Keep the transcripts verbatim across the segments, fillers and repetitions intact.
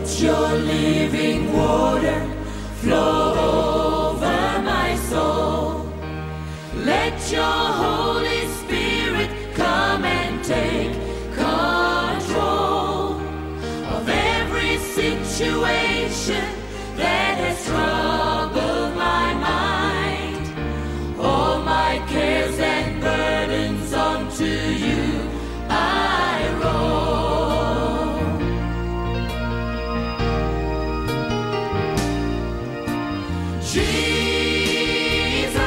Let your living water flow over my soul. Let your Holy Spirit come and take control of every situation that has troubled my mind. All my cares and burdens unto you I roll. Jesus,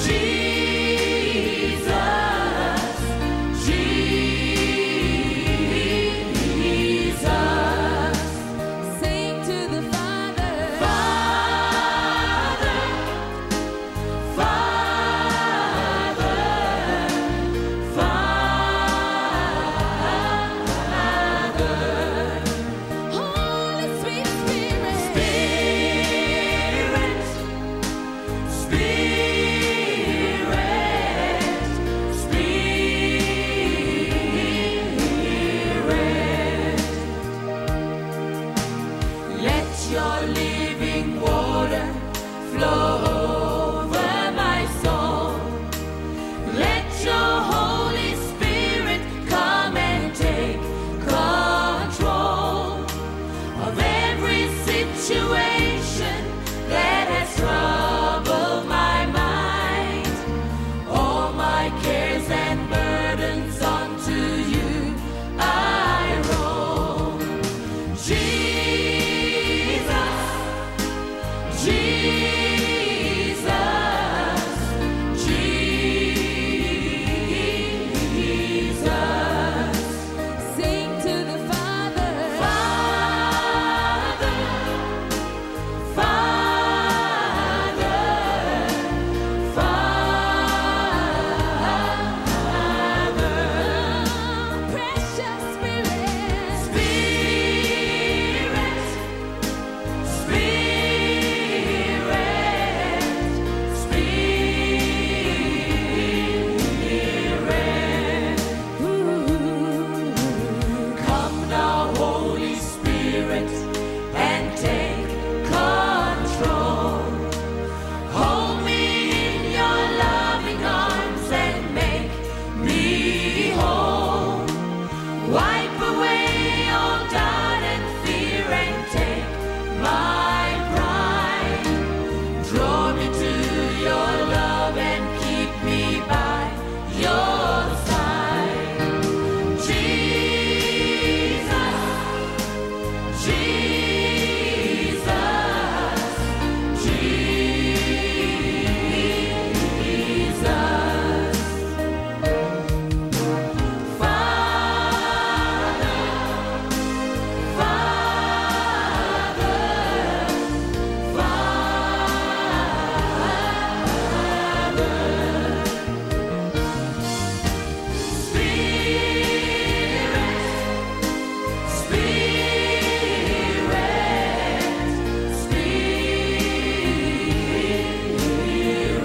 Jesus, Jesus. Sing to the Father. Father, Father, Father. Holy sweet Spirit. Spirit, Spirit, Spirit. Let your living water flow over my soul. Let your Holy Spirit come and take control of every situation that has troubled my mind. All my cares and burdens unto you I roll. Jesus, Jesus, Jesus. Sing to the Father. Father, Father, Father. Precious Spirit. Spirit, Spirit, Spirit. Ooh. Come now, Holy Spirit, and take control. Hold me in your loving arms and make me whole. Wipe away all doubt and fear and take my pride. Draw me to your love and keep me by your side. Jesus, Jesus, Jesus. Father, Father, Father. Spirit, Spirit,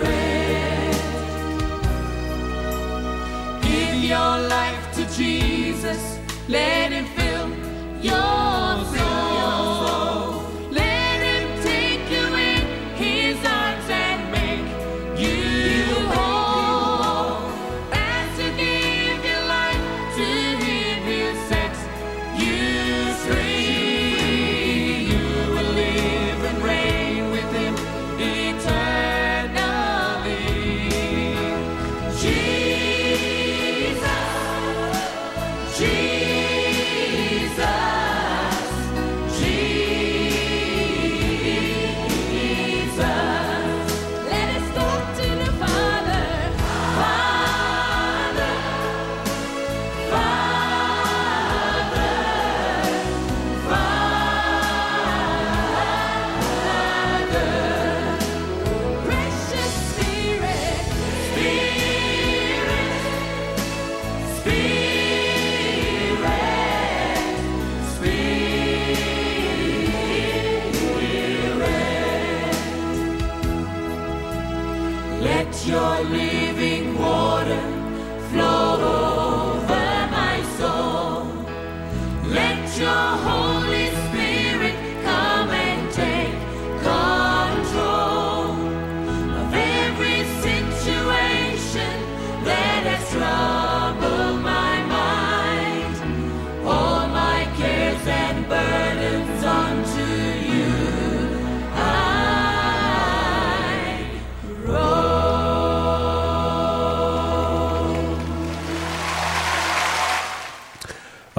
Spirit. Give your life to Jesus. Let him fill your soul. Let him take you in his arms and make you whole. As you give your life to him, he'll set you free. You will live and reign with him eternally. Jesus, Jesus,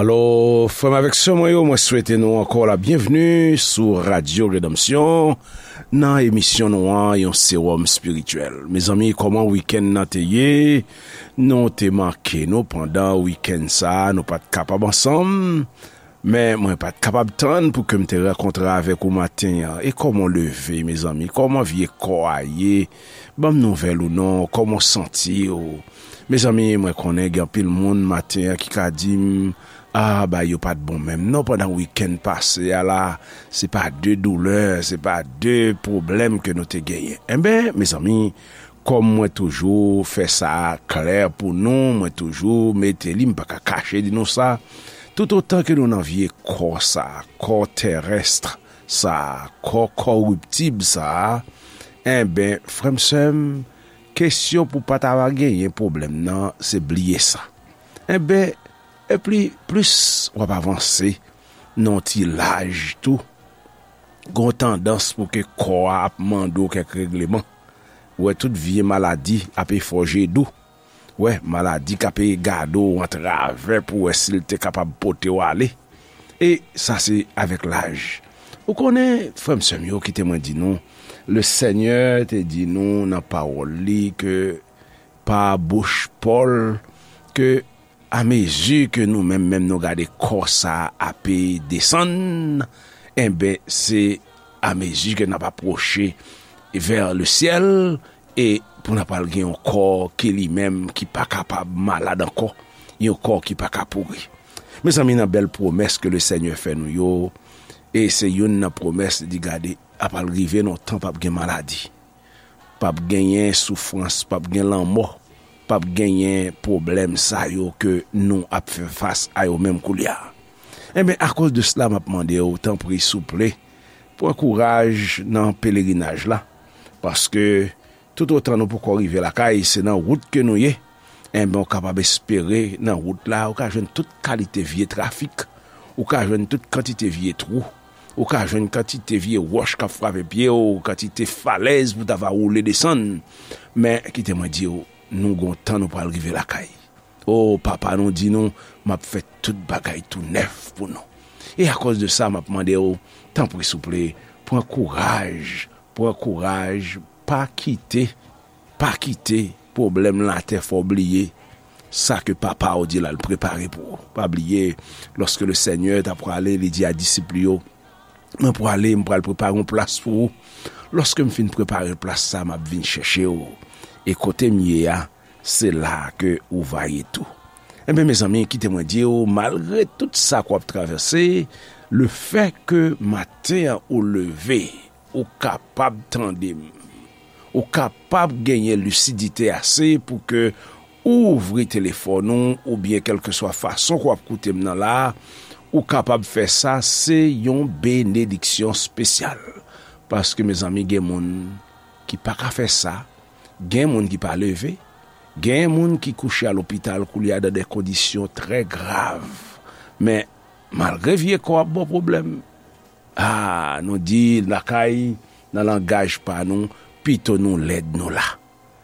Alò, frè m avèk sè mwen yo, mwen swete nou ankò la byenvni sou Radyo Redanmsyon nan emisyon nou an, yon sewòm espirityèl. Mezanmi, kòman wikenn nan te ye? Nou te manke nou pandan wikenn sa a, nou pa t kapab ansanm, men mwen pa t kapab tann pou ke m te rankontre avèk ou maten an. E kòman w leve, mezanmi? Kòman vye kò a ye? Ban m nouvèl ou non, kòman w santi w? Mezanmi, mwen konnen gen anpil moun maten an ki ka di m, "Ah, bagay yo pa t bon menm non pandan wikenn pase a la, se pa de doulè, se pa de pwoblèm ke nou te genyen." Enben, mezanmi, kòm mwen toujou fè sa klè pou nou, mwen toujou mete li, m pa ka kache di nou sa, toutotan ke nou nan vye kò sa, kò terès sa, kò kòriptib sa, enben, frè m, sè m, kesyon pou pa ta va genyen pwoblèm nan, se bliye sa. Enben, e pli, plis w ap avanse nan yon ti laj tou, gon tandans pou ke kò a ap mande w kèk regleman. Ou wè tout vye maladi ap efòje dou. Ou wè maladi k ap gade w antravè pou wè si l te kapab pote w ale. E sa se avèk laj. Ou konnen, frè m, sè m yo, kite mwen di nou, le Senyè te di nou nan pawòl li ke pa bouch Pòl, ke amezi ke nou menm, menm nou gade kò sa a ape desann, enben, se amezi ke n ap apwoche vè le syèl, e pou n ap al gen yon kò ki li menm ki pa kapab malad ankò, yon kò ki pa ka pouri. Mezanmi, nan bèl pwomès ke le Senyè fè nou yo, e se youn nan pwomès, li di, gade, ap al rive nan yon tan p ap gen maladi. P ap genyen soufrans, p ap gen lanmò, p ap genyen pwoblèm sa yo ke nou ap fè fas a yo menm koulye a. Enben, akoz de sela, m ap mande w, tanpri, souple, pran kouraj nan pelerinaj la, paske toutotan nou poko rive lakay, se nan wout ke nou ye, enben, ou kapab espere nan wout la, ou ka jwenn tout kalite vye trafik, ou ka jwenn tout kantite vye twou, ou ka jwenn kantite vye wòch k ap frape pye w, kantite falèz pou ta va woule desann. Men, kite mwen di w, nou gon tan nou pral rive lakay. O, Papa nou di nou, "M ap fè tout bagay tou nèf pou nou." E akoz de sa, m ap mande w, tanpri, souple, pran kouraj, pran kouraj, pa kite, pa kite pwoblèm latè fè w bliye sa ke Papa w di l al prepare pou ou. Pa bliye, lòske le Senyè t ap prale, li di a disip li yo, "Mwen prale, m pral prepare yon plas pou ou. Lòske m fin prepare plas sa, m ap vin chèche w. E kote m ye a, se la ke ou va ye tou." Enben, mezanmi, kite mwen di w, malgre tout sa ke w ap travèse, lefè ke maten an ou leve, ou kapab tande m, ou kapab genyen lisidite ase pou ke ou ouvri telefòn ou, oubyen kèlkeswa fason ke w ap koute m nan la, ou kapab fè sa, se yon benediksyon espesyal. Paske, mezanmi, gen moun ki pa ka fè sa, gen moun ki pa leve, gen moun ki kouche a lopital koulye a dan de kondisyon trè grav. Men, malgre vye kò ap ba w pwoblèm, a, nou di lakay, nan langaj pa nou, pito nou lèd nou la.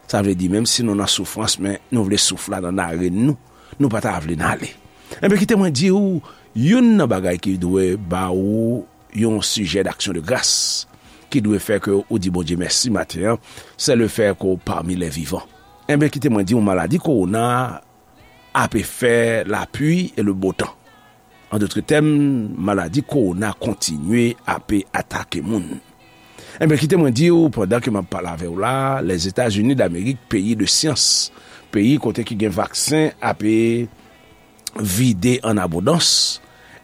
Sa vle di, menm si nou nan soufrans, men nou vle souf la nan narèn nou, nou pa ta vle n ale. Enben, kite mwen di w, youn nan bagay ki dwe ba ou yon sijè d'aksyon de gras, ki dwe fè ke ou di Bondye mèsi maten an, se le fè ke w pami lè vivan. Enben, kite mwen di w, maladi kowona ape fè lapli e le bo tan. An dòt tèm, maladi kowona kontinye ape atake moun. Enben, kite mwen di w, pandan ke m ap pale avè w la, Lèzetazini Damerik, peyi de syans, peyi kote ki gen vaksen ape vide an abondans,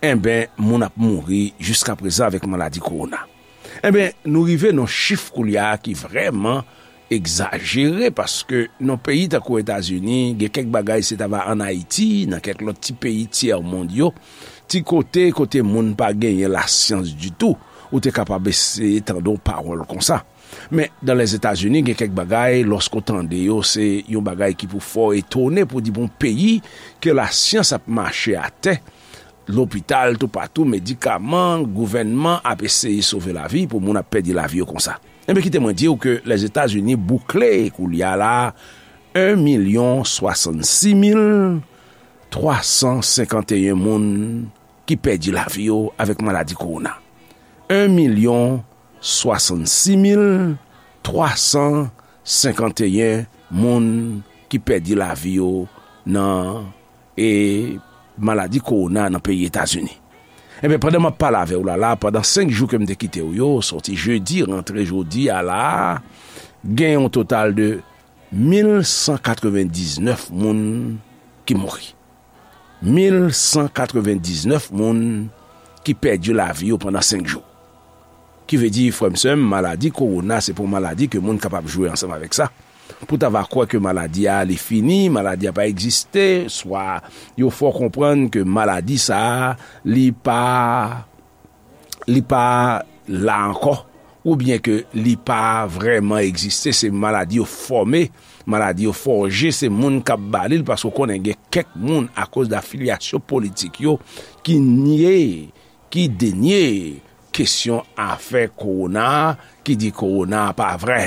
enben, moun ap mouri jiskaprezan avèk maladi kowona. Enben, nou rive nan chif koulye a ki vrèman egzajere, paske nan peyi tankou Etazini, gen kèk bagay se ta va ann Ayiti, nan kèk lòt ti peyi tyèmonn yo, ti kote, kote moun pa genyen lasyans ditou, ou te kapab eseye tande yon pawòl konsa. Men, dan Lèzetazini, gen kèk bagay, lòske w tande yo, se yon bagay ki pou fè w etone, pou di, bon, peyi ke lasyans ap mache atè, lopital toupatou, medikaman, gouvènman ap eseye sove lavi pou moun ap pèdi lavi yo konsa. Enben, kite mwen di w ke Lèzetazini boukle koulye a la, en milyon swasannsis mil twa san senkanteyen moun ki pèdi lavi yo avèk maladi kowona. En milyon swasann sis mil twa san senkanteyen moun ki pèdi lavi yo nan, e, maladi kowona nan peyi Etazini. Ebyen, pandan m ap pale avè w la, la, pandan senk jou ke m te kite w yo, sòti jedi, rantre jodi a la, gen yon total de mil san katrevendiznèf moun ki mouri. Mil san katrevendiznèf moun ki pèdi lavi yo pandan senk jou. Ki vle di, frè m, sè m, maladi kowona, se pa yon maladi ke moun kapab jwe ansanm avèk sa. Pou ta va kwè ke maladi a, li fini, maladi a pa egziste, swa yo fè w konprann ke maladi sa a, li pa, li pa la ankò, oubyen ke li pa vrèman egziste, se maladi yo fòme, maladi yo fòje, se moun k ap ba li l, paske w konnen gen kèk moun, akoz de afilyasyon politik yo, ki nye, ki denye kesyon afè kowona, ki di kowona pa vrè.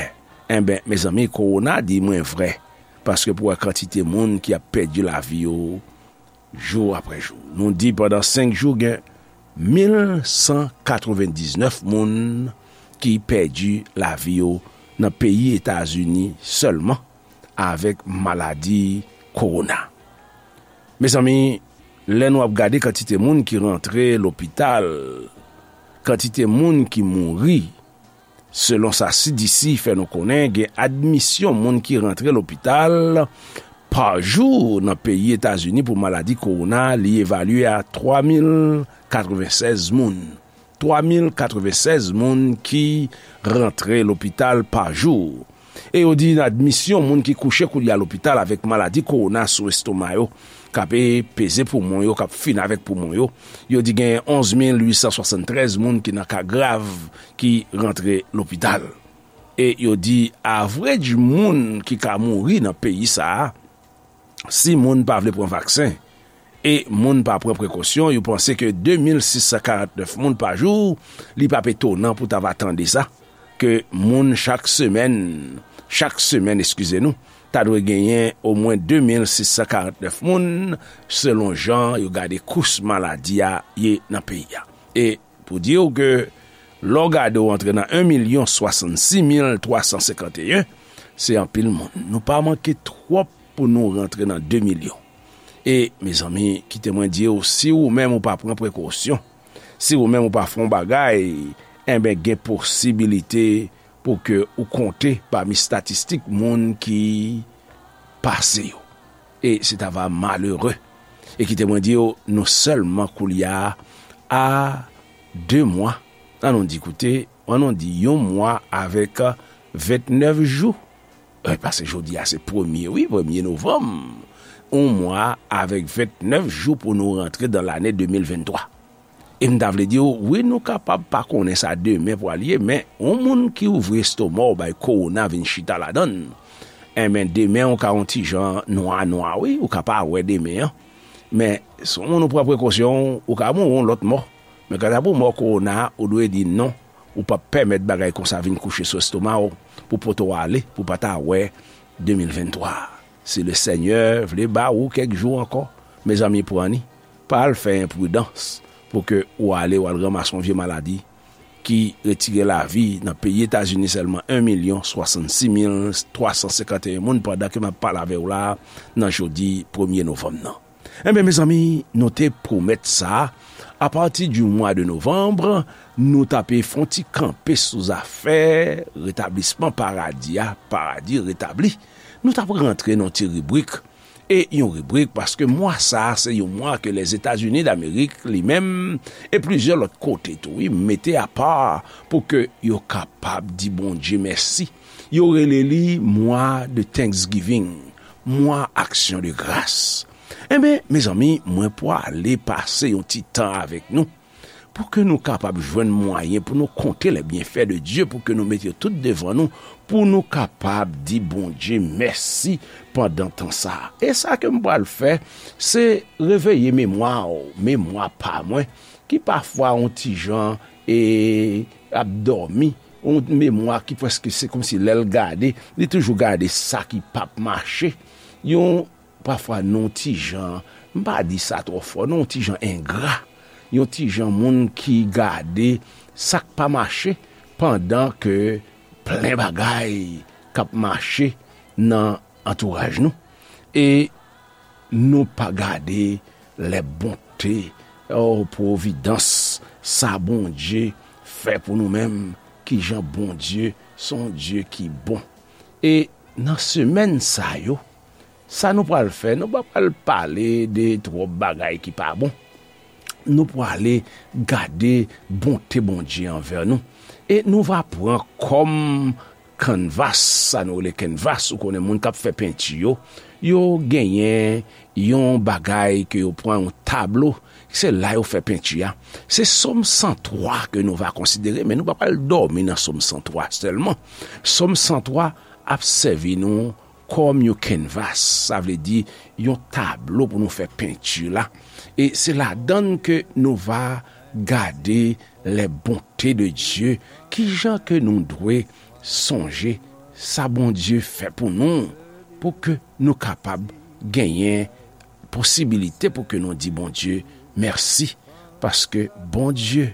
Enben, mezanmi, kowona di mwen vrè. Paske pou wè kantite moun ki ap pèdi lavi yo jou apre jou. Nou di pandan senk jou, gen mil san katrevendiznèf moun ki pèdi lavi yo nan peyi Etazini sèlman avèk maladi kowona. Mezanmi, lè nou ap gade kantite moun ki rantre lopital, kantite moun ki mouri, selon sa C D C fè nou konnen, gen admisyon moun ki rantre lopital pa jou nan peyi Etazini pou maladi kowona, li evalye a twa mil katrevensèz moun. Twa mil katrevensèz moun ki rantre lopital pa jou. E yo di admisyon moun ki kouche koulye a lopital avèk maladi kowona sou estoma yo, k ap peze poumon yo, k ap fin avèk poumon yo. Yo di gen onz mil uit san swasanntrèz moun ki nan ka grav ki rantre lopital. E yo di average moun ki ka mouri nan peyi sa a, si moun pa vle pran vaksen e moun pa pran prekosyon, yo panse ke de mil sis san karantnèf moun pa jou, li p ap etonan pou ta va tande sa, ke moun chak semèn, chak semèn, eskize nou, ta dwe genyen omwen de mil sis san karantnèf moun, selon jan yo gade kous maladi a ye nan peyi a. E pou di w ke lè w gade w antre nan en milyon swasann sis mil twa san senkanteyen, se anpil moun. Nou pa manke twòp pou nou rantre nan de milyon. E, mezanmi, kite mwen di w, si ou menm ou pa pran prekosyon, si ou menm ou pa fè yon bagay, enben, gen posibilite pou ke ou konte pami estatistik moun ki pase yo. E se ta va malere. E kite mwen di w, nou sèlman koulye a a de mwa. An nou di, koute, an nou di yon mwa avèk ventnèf jou. E, paske jodi a se premye, wi, premye novanm. Yon mwa avèk ventnèf jou pou nou rantre dan lane de mil venntwa. E m ta vle di w, wi, nou kapab pa konnen sa demen pral ye, men yon moun ki ouvri estoma w bay kowona vin chita ladan l, enben, demen w ka yon ti jan nwa nwa, wi, ou ka pa wè demen an. Men, si w moun ou pran prekosyon w, ou ka mouri yon lòt mò. Men kanta pou mò kowona a, ou dwe di non, ou p ap pèmèt bagay konsa vin kouche sou estoma w, pou pote w ale, pou pa ta wè de mil venntwa. Si Lesenyè vle ba ou kèk jou ankò, mezanmi, pran li. Pa al fè enpridans pou ke ou ale, w al ranmase yon vye maladi ki retire lavi nan peyi Etazini sèlman en milyon swasann sis mil twa san senkanteyen moun pandan ke m ap pale avè w la a nan jodi premye novanm nan. Enben, mezanmi, nou te pwomèt sa, apati di mwa de novanm, nou t ape fè yon ti kanpe sou zafè retablisman paradi a, paradi retabli. Nou t ap rantre nan yon ti ribrik, e yon ribrik, paske mwa sa a, se yon mwa ke Lèzetazini Damerik, li menm, e plizyè lòt kote tou, wi, mete apa pou ke yo kapab di Bondye mèsi. Yo rele li mwa de Thanksgiving, mwa aksyon de gras. Enben, mezanmi, mwen pwale pase yon ti tan avèk nou, pou ke nou kapab jwenn mwayen pou nou konte les bienfaits de Dieu, pou ke nou mete yo tout devan nou, pou nou kapab di Bondye mèsi pandan tan sa a. E sa ke m pral fè, se reveye memwa w, memwa pa mwen, ki pafwa yon ti jan, e, ap dòmi, yon memwa ki prèske se kòmsi lè l gade, li toujou gade sa ki p ap mache. Yon, pafwa, nou ti jan M pa di sa twò fò, non, yon ti jan engra, yon ti jan moun ki gade sa k pa mache, pandan ke plen bagay k ap mache nan antouraj nou. E nou pa gade lè bonte, o, pwovidans, sa Bondye fè pou nou menm, ki jan Bondye se yon Dye ki bon. E nan semèn sa yo, sa nou pral fè, nou pa pral pale de twòp bagay ki pa bon. Nou prale gade bonte Bondye anvè nou. E nou va pran kòm kanvas, sa nou rele kanvas, ou konnen moun k ap fè penti yo, yo genyen yon bagay ke yo pran, yon tablo, se la yo fè penti a. Se Sòm san twa ke nou va konsidere, men nou pa pral dòmi nan Sòm san twa sèlman. Sòm san twa ap sèvi nou kòm yon kanvas, sa vle di yon tablo pou nou fè penti la. E se ladan l ke nou va gade les bontés de Dieu, ki jan ke nou dwe sonje sa Bondye fè pou nou, pou ke nou kapab genyen posibilite pou ke nou di Bondye mèsi, paske Bondye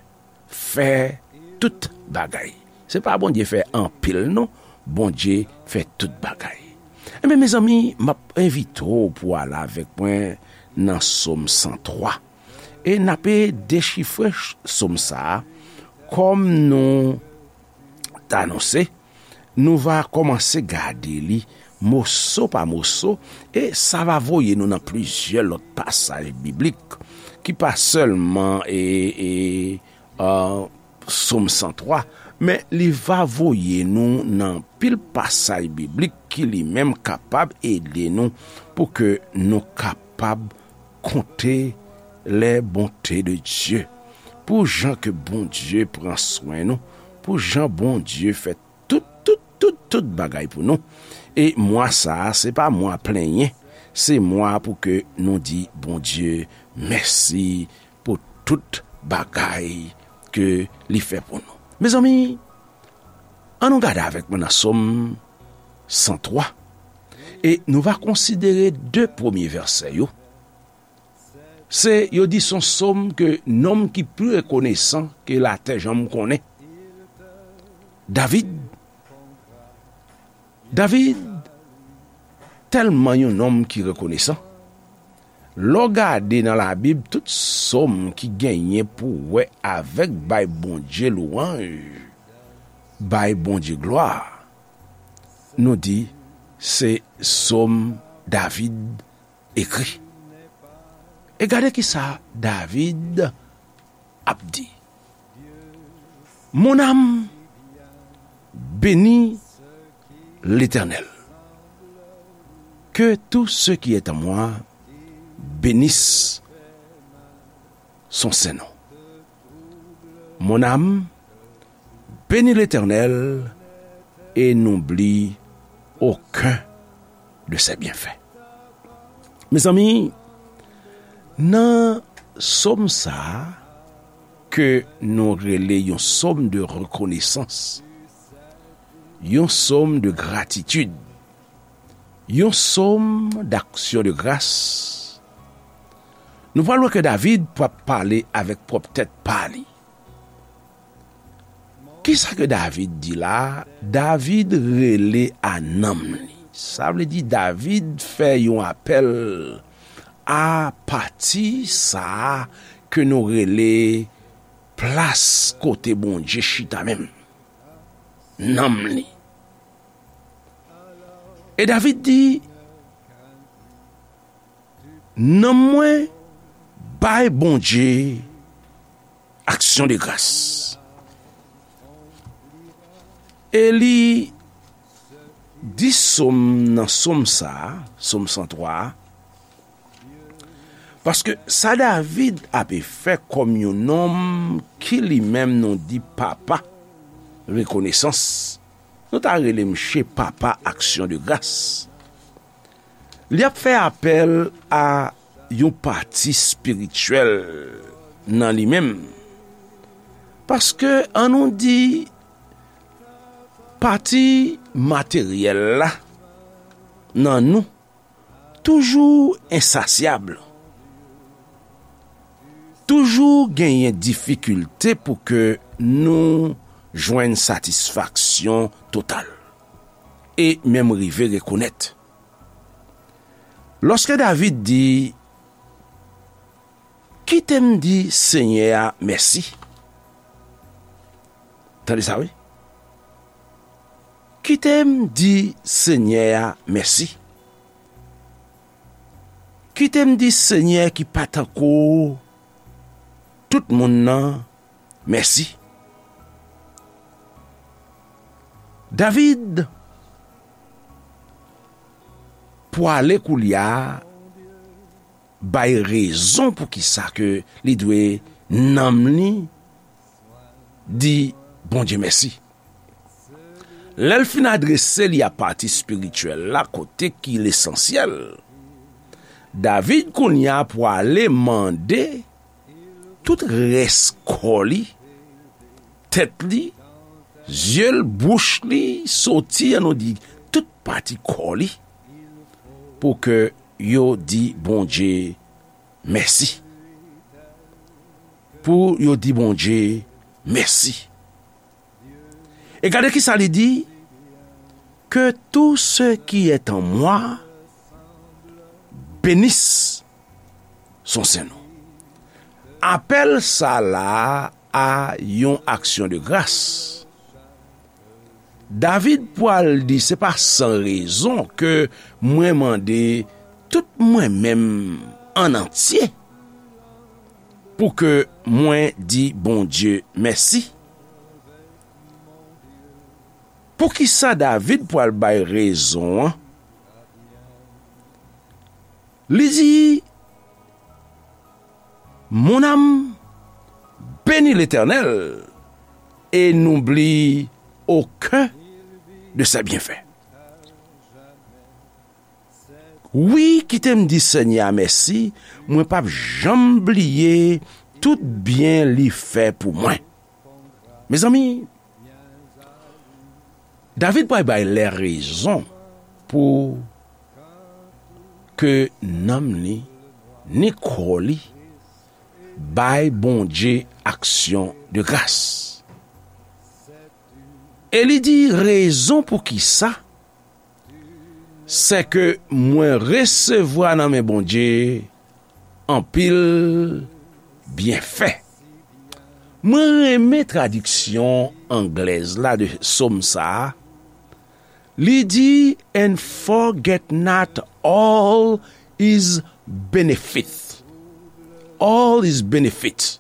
fè tout bagay. Se pa Bondye fè anpil, non. Bondye fè tout bagay. Ebyen, mezanmi, m ap envite w pou w ale avèk mwen nan Sòm san twa. E n ape dechifre ch-, Sòm sa a, kòm nou t anonse, nou va kòmanse gade li moso pa moso, e sa va voye nou nan plizyè lòt pasaj biblik, ki pa sèlman, e, e, a, Sòm san twa, men li va voye nou nan pil pasaj biblik ki li menm kapab ede nou pou ke nou kapab konte les bontés de Dieu. Pou jan ke Bondye pran swen nou, pou jan Bondye fè tout, tout, tout, tout bagay pou nou. E mwa sa a, se pa mwa plenyen, se mwa pou ke nou di Bondye mèsi pou tout bagay ke li fè pou nou. Mezanmi, ann nou gade avèk mwen nan Sòm san twa, e nou va konsidere de premye vèsè yo. Se, yo di se yon sòm ke nonm ki pi rekonesan ke latè janm konnen. David, David tèlman yon nonm ki rekonesan. Lè w gade nan Labib, tout sòm ki genyen pou wè avèk bay Bondye lwanj, bay Bondye glwa, nou di se sòm David ekri. E gade ki sa David ap di. Mon âme, bénis l'Éternel. Que tout ce qui est en moi bénisse son saint nom. Mon âme, bénis l'Éternel et n'oublie aucun de ses bienfaits. Mezanmi, nan sòm sa a, ke nou rele yon sòm de rekonesans, yon sòm de gratitid, yon sòm d'aksyon de gras, nou pral wè ke David p ap pale avèk pwòp tèt pa li. Kisa ke David di la? David rele a nanm li. Sa vle di David fè yon apèl a pati sa a ke nou rele plas kote Bondye chita menm. Nanm li. E David di, nanm mwen bay Bondye aksyon de gras. E li di sòm nan sòm sa a, sòm san twa a, paske sa David ape fè kòm yon nonm ki li menm nou di papa rekonesans, nou ta rele msye papa aksyon de gras. Li ap fè apèl a yon pati espirityèl nan li menm. Paske, ann nou di, pati materyèl la nan nou toujou ensasyab. toujou genyen difikilte pou ke nou jwenn satisfaksyon total e menm rive rekonèt. Lòske David di, "Kite m di Senyè a mèsi." Tande sa, wi. "Kite m di Senyè a mèsi. Kite m di Senyè ki pa tankou tout moun nan mèsi." David pwale koulye a bay rezon pou ki sa ke li dwe nanm li di Bondye mèsi. Lè l fin adrese li a pati espirityèl la, kote ki lesansyèl, David kounye a pwale mande tout rès kò li, tèt li, zye l, bouch li, soti, an nou di, tout pati kò li, pou ke yo di Bondye mèsi. Pou yo di Bondye mèsi. E gade ki sa li di, "Que tout ce qui est en moi bénisse son Saint nom." Apèl sa la a yon aksyon de gras. David pral di, "Se pa san rezon ke mwen mande tout mwen menm an antye pou ke mwen di Bondye mèsi." Poukisa David pral bay rezon an? Li di, "Mon âme, bénis l'Éternel et n'oublie aucun de ses bienfaits." Wi, kite m di Senyè a mèsi, mwen p ap janm bliye tout byen li fè pou mwen. Mezanmi, David pral bay lè rezon pou ke nanm li, ni kò li, bay Bondye aksyon de gras. E li di rezon pou ki sa, sèke mwen resevwa nan men Bondye anpil byenfè. Mwen renmen tradiksyon anglèz la de sòm sa a. Li di, "And forget not all his benefits." All his benefits.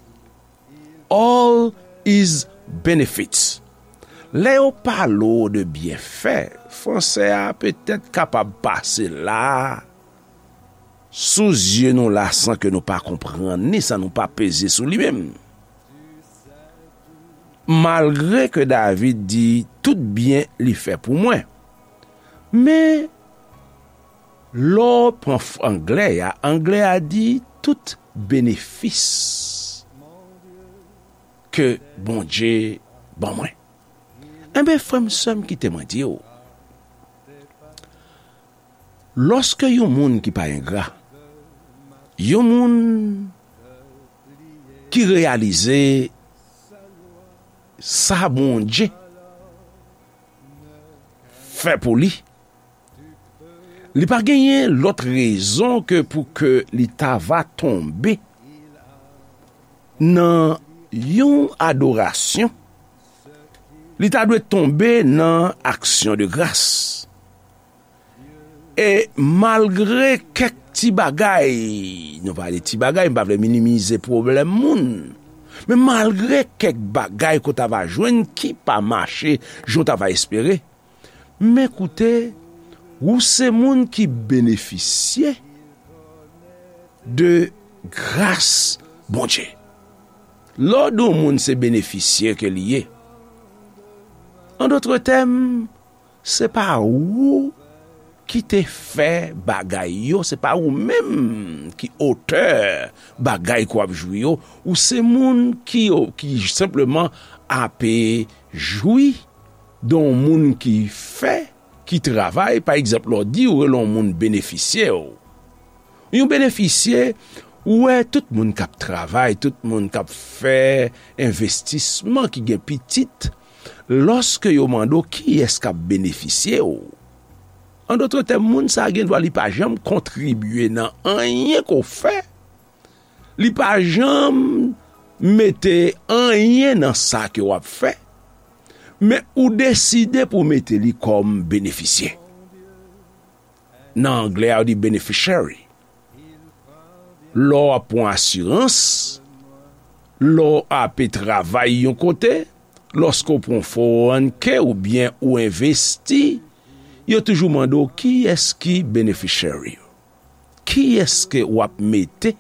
All his benefits. Lè yo pale w de byenfè, fransè a petèt kapab pase la sou zye nou la san ke nou pa konprann ni san nou pa peze sou li menm. Malgre ke David di tout byen li fè pou mwen, men lè w pran f-, anglè a, anglè a di tout benefis ke Bondye ban mwen. Enben, frè m, sè m, kite mwen di w, lòske yon moun ki pa engra, yon moun ki reyalize sa Bondye fè pou li, li pa genyen lòt rezon ke pou ke li ta va tonbe nan yon adorasyon, li ta dwe tonbe nan aksyon de gras. E malgre kèk ti bagay, nou pale ti bagay, m pa vle minimize pwoblèm moun, men malgre kèk bagay ke w ta va jwenn ki pa mache jan w ta va espere, men koute, ou se moun ki benefisye de gras Bondye. Lè w di yon moun se benefisye ke li ye, an dòt tèm, se pa ou ki te fè bagay yo, se pa ou menm ki otè bagay ke w ap jwi yo, ou se moun ki, ki senpleman ape jwi de yon moun ki fè, ki travay, pa egzanp, lè w di ou rele yon moun benefisye w. Yon benefisye, Ou wè, tout moun k ap travay, tout moun k ap fè envestisman ki gen pitit, lòske yo mande w kiyès k ap benefisye w, an dòt tèm, moun sa a gen dwa li pa janm kontribye nan anyen ke w fè, li pa janm mete anyen nan sa ke w ap fè, men ou deside pou w mete li kòm benefisye. Nan anglè a, yo di beneficiary. Lè w ap pran asirans, lè w ape travay yon kote, lòske w pran fo rann ke oubyen ou envesti, yo toujou mande w kiyès ki beneficiary yo. Kiyès ke w ap mete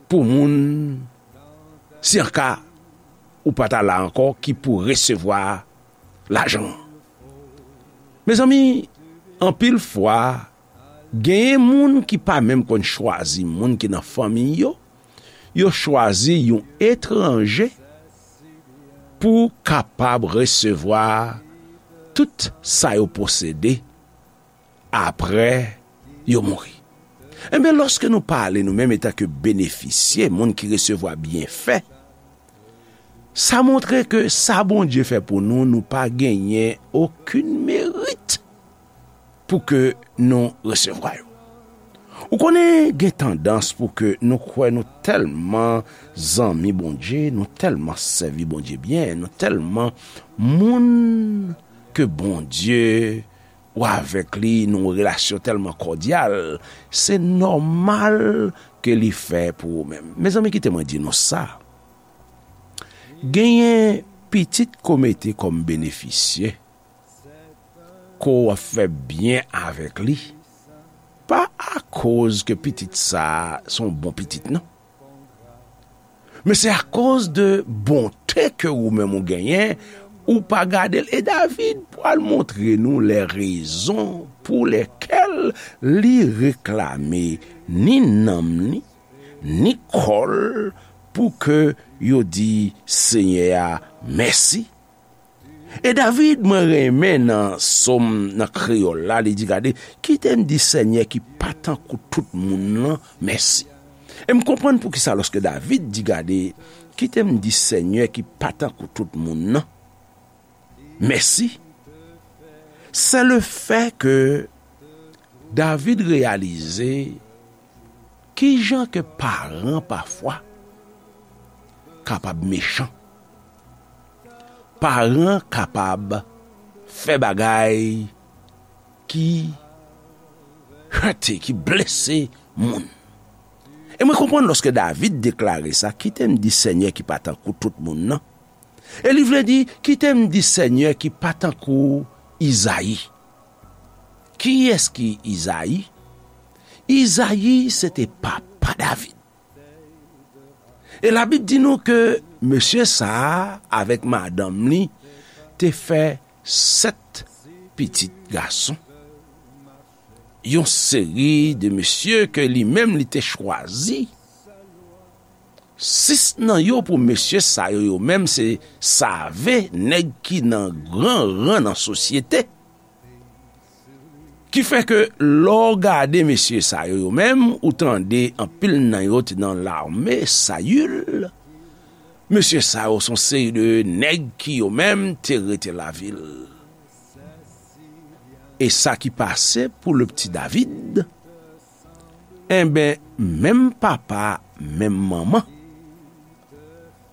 pou moun, si an ka ou pa ta la ankò, ki pou resevwa lajan an. Mezanmi, anpil fwa, genyen moun ki pa menm konn chwazi moun ki nan fanmi yo, yo chwazi yon etranje pou kapab resevwa tout sa yo posede apre yo mouri. Enben, lòske nou pale nou menm etanke benefisye, moun ki resevwa byenfè, sa montre ke sa Bondye fè pou nou, nou pa genyen okenn merit pou ke nou resevwa yo. Ou konnen, gen tandans pou ke nou kwè nou tèlman zanmi Bondye, nou tèlman sèvi Bondye byen, nou tèlman moun ke Bondye, ou avèk li nan yon relasyon tèlman kòdyal, se nòmal ke li fè pou ou menm. Mezanmi, kite mwen di nou sa. Genyen pitit ke w mete kòm benefisye, ke w ap fè byen avèk li, pa akoz ke pitit sa a se yon bon pitit, non. Men se akoz de bonte ke ou menm ou genyen, ou pa gade l. E David pral montre nou lè rezon pou lèkèl li reklame ni nanm li, ni kò l, pou ke yo di Senyè a mèsi. E David, mwen renmen nan sòm nan kreyòl la, li di, gade, kite m di Senyè ki pa tankou tout moun nan mèsi. E m konprann poukisa lòske David di, gade, kite m di Senyè ki pa tankou tout moun nan mèsi, se le fè ke David reyalize kijan ke paran pafwa kapab mechan. Paran kapab fè bagay ki hète, ki blese moun. E mwen konprann lòske David deklare sa, kite m di Senyè ki pa tankou tout moun nan. E li vle di, kite m di Senyè ki pa tankou Izayi. Kiyès ki Izayi? Izayi se te papa David. E Labib di nou ke mesye sa a avèk madanm li te fè sèt pitit gason. Yon seri de mesye ke li menm li te chwazi. Sis nan yo pou mesye sa yo, yo menm se save, nèg ki nan gran ran nan sosyete. Ki fè ke lè w gade mesye sa yo, yo menm, ou tande anpil nan yo te nan lame Sayil. Mesye sa yo se yon seri de nèg ki yo menm te rete lavil. E sa ki pase pou le pti David? Enben, menm papa, menm manman,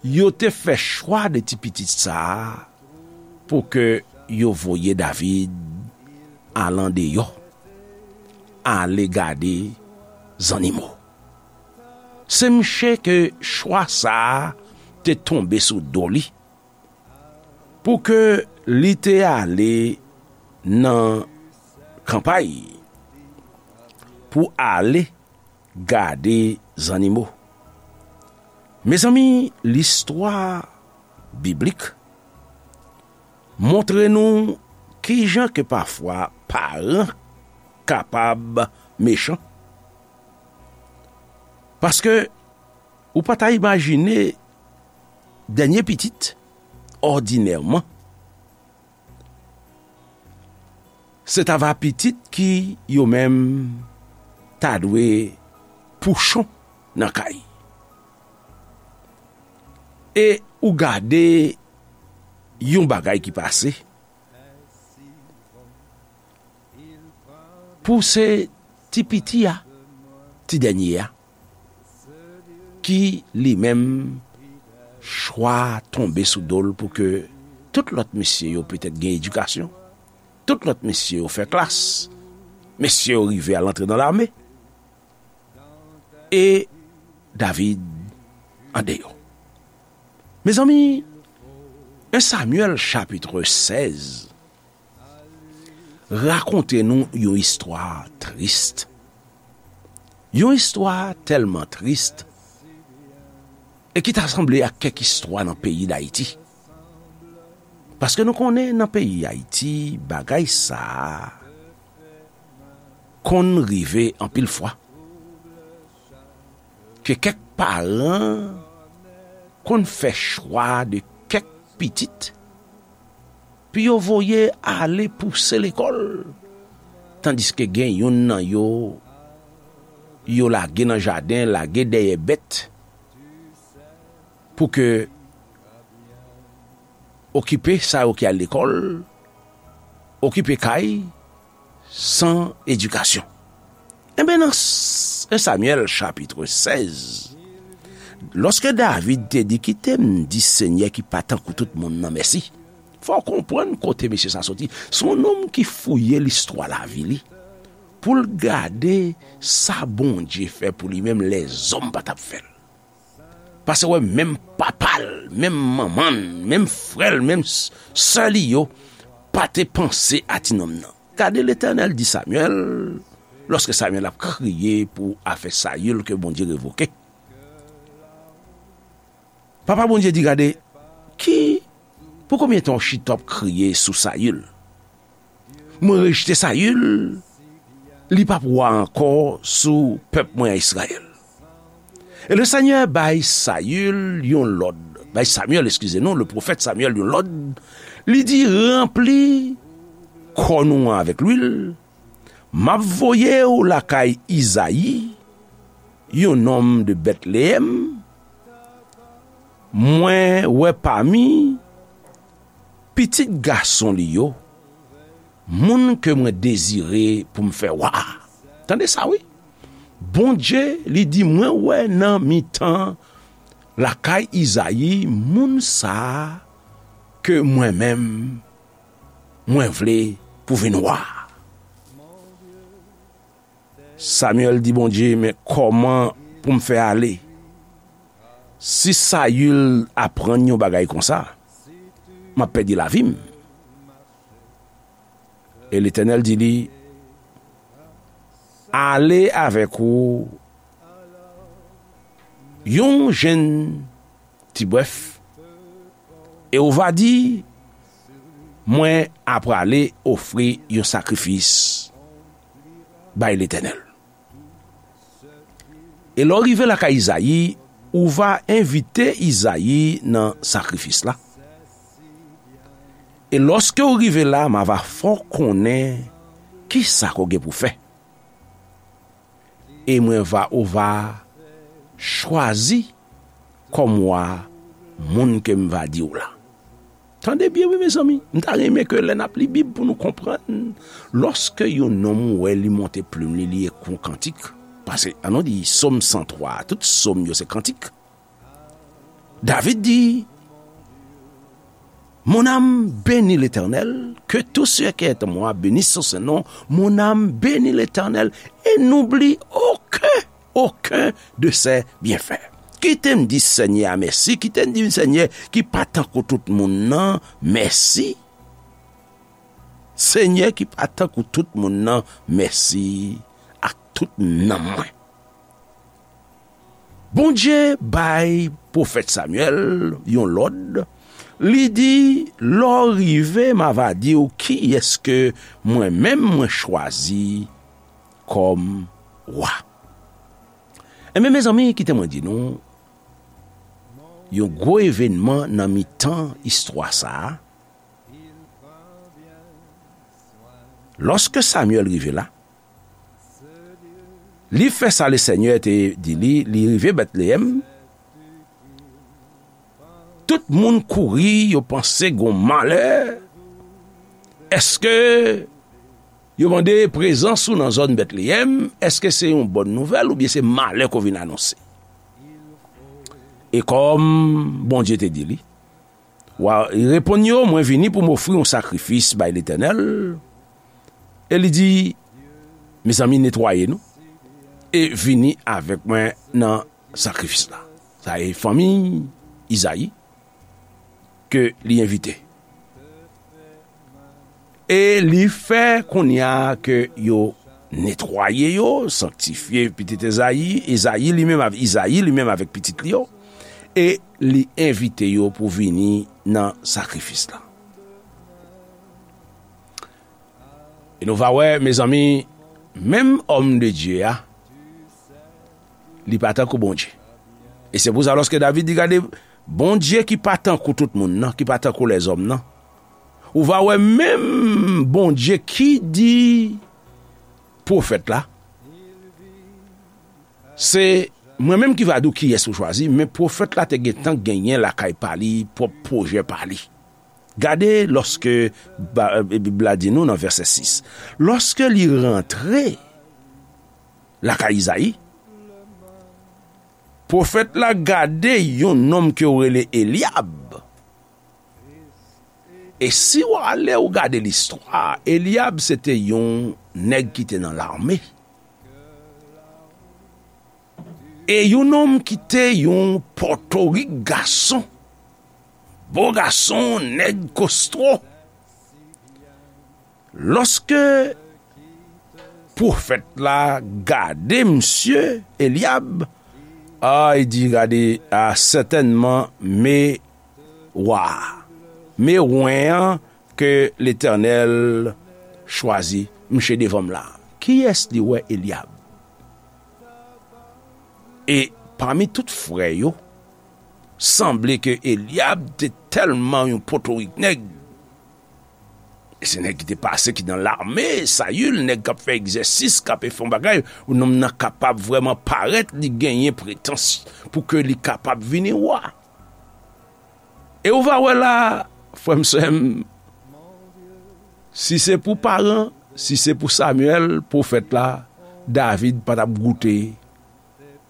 yo te fè chwa de ti pitit sa a pou ke yo voye David al andeyò, ale gade zannimo. Se mouche ke chwa sa a te tonbe sou do li, pou ke li te ale nan kanpay, pou ale gade zannimo. Mezanmi, listwa biblik montre nou kijan ke pafwa paran kapab mechan. Paske ou pa ta imajine dènye pitit, òdinèman, se ta va pitit ki yo menm ta dwe pouchon nan kay. E ou gade yon bagay ki pase. Pou se ti piti a, ti dènye a, ki li menm chwa tonbe sou do l pou ke tout lòt mesye yo petèt gen edikasyon, tout lòt mesye yo fè klas, mesye yo rive al antre nan lame, e David andeyò. Mezanmi, en Samyèl chapit sèz rakonte nou yon istwa tris. Yon istwa tèlman tris e ki ta sanble ak kèk istwa nan peyi Dayiti. Paske nou konnen nan peyi Ayiti, bagay sa a konn rive anpil fwa. Ke kèk paran konn fè chwa de kèk pitit pou yo voye ale pouse lekòl, tandiske gen youn nan yo, yo lage nan jaden, lage dèyè bèt, pou ke okipe sa yo ki al lekòl, okipe kay, san edikasyon. Enben, nan s-, en Samyèl chapit sèz, lòske David te di, "Kite m di Senyè ki pa tankou tout moun nan mèsi." Fò w konprann kote mesye sa soti. Se yon nonm ki fouye listwa lavi li pou l gade sa Bondye fè pou li menm lèzòm pa t ap fè l. Paske wè, menm papa l, menm manman l, menm frè l, menm s-, sè li yo pa te panse a ti nonm nan. Gade, Letènèl di Samyèl, lòske Samyèl ap kriye pou afè Sayil ke Bondye revoke. Papa Bondye di, "Gade, ki, pou konbyen tan w chita w ap kriye sou Sayil? Mwen rejte Sayil, li p ap wa ankò sou pèp mwen a Izrayèl." E Lesenyè bay Sayil yon lòd, bay Samyèl, eskize nou, le pwofèt Samyèl yon lòd, li di, "Ranpli kòn ou an avèk lwil, m ap voye w lakay Izayi, yon nonm de Bètleyèm, mwen wè pami pitit gason li yo, moun ke mwen dezire pou m fè wa." Tande sa, wi. Bondye, li di, "Mwen wè nan mitan lakay Izayi, moun sa a ke mwen menm, mwen vle pou vin wa." Samyèl di Bondye, "Men kòman pou m fè ale? Si Sayil aprann yon bagay konsa, m ap pèdi lavi m." E Letènèl di li, "Ale avèk ou yon jenn ti bwèf, e ou va di, 'Mwen aprale ofri yon sakrifis bay Letènèl.'" E lè w rive lakay Izayi, ou va envite Izayi nan sakrifis la. E lòske w rive la, m a va fè w konnen kisa ke w gen pou fè. E mwen va, ou va chwazi kòm wa moun ke m va di w la. Tande byen, wi, mezanmi. M ta renmen ke lè n ap li Bib pou nou konprann, lòske yon nonm ou wè li monte plim li, li ekri yon kantik, paske, ann nou di, Sòm san twa, tout sòm yo se kantik. David di, "Mon âme bénit l'Éternel, que tout ce qui est en moi bénisse son saint nom. Mon âme bénit l'Éternel et n'oublie aucun, aucun de ses bienfaits." Kite m di Senyè a mèsi, kite m di Senyè ki pa tankou tout moun nan, mèsi. Senyè ki pa tankou tout moun nan, mèsi ak tout nanm mwen. Bondye bay pwofèt Samyèl yon lòd. Li di, "Lè w rive, m a va di w kiyès ke mwen menm mwen chwazi kòm wa." Enben, mezanmi, kite mwen di nou, yon gwo evènman nan mitan istwa sa a. Lòske Samyèl rive la, Li fè sa Lesenyè te di li, li rive Bètleyèm. Tout moun kouri, yo panse gon malè. Èske yo mande prezans ou nan zòn Bètleyèm? Èske se yon bòn nouvèl oubyen se malè ke w vin anonse? E kòm Bondye te di li, wa, li reponn yo, mwen vini pou m ofri yon sakrifis bay Letènèl. E li di, mezanmi, netwaye nou e vini avèk mwen nan sakrifis la. Sa e fanmi Izayi ke li envite. E li fè kounye a ke yo netwaye yo, sanktifye pitit Ezayi, Ezayi li menm, Izayi li menm avèk pitit li yo, e li envite yo pou vini nan sakrifis la. E nou va wè, mezanmi, menm òm de Dye a, li pa tankou Bondye. E se pou sa, lòske David di, gade, Bondye ki pa tankou tout moun nan, ki pa tankou lèzòm nan, ou va wè menm Bondye ki di pwofèt la, se mwen menm ki va di w kiyès ou chwazi, men pwofèt la te gentan genyen lakay pa li, pwòp pwojè pa li. Gade lòske ba- Bib la di nou nan vèsè sis, lòske li rantre lakay Izayi, pwofèt la gade yon nonm ke yo rele Elyab. E si w ale ou gade listwa, Elyab se te yon nèg ki te nan lame. E yon nonm ki te yon pòtorik gason, bo gason, nèg kostwo. Lòske pwofèt la gade misye Elyab, a, li di, gade, a, sètènman, me wa a, me wen an ke Letènèl chwazi, misye devan m la. Kiyès li wè? Elyab. E pami tout frè yo, sanble ke Elyab te tèlman yon potorik nèg. E se nèg ki te pase, ki nan lame, Sayil, nèg k ap fè egzèsis, k ap fè yon bagay, nonm nan kapab vrèman parèt, li genyen pretans pou ke li kapab vini wa. E ou va wè la, frè m, sè m, si se pou paran, si se pou Samyèl, pwofèt la, David pa t ap goute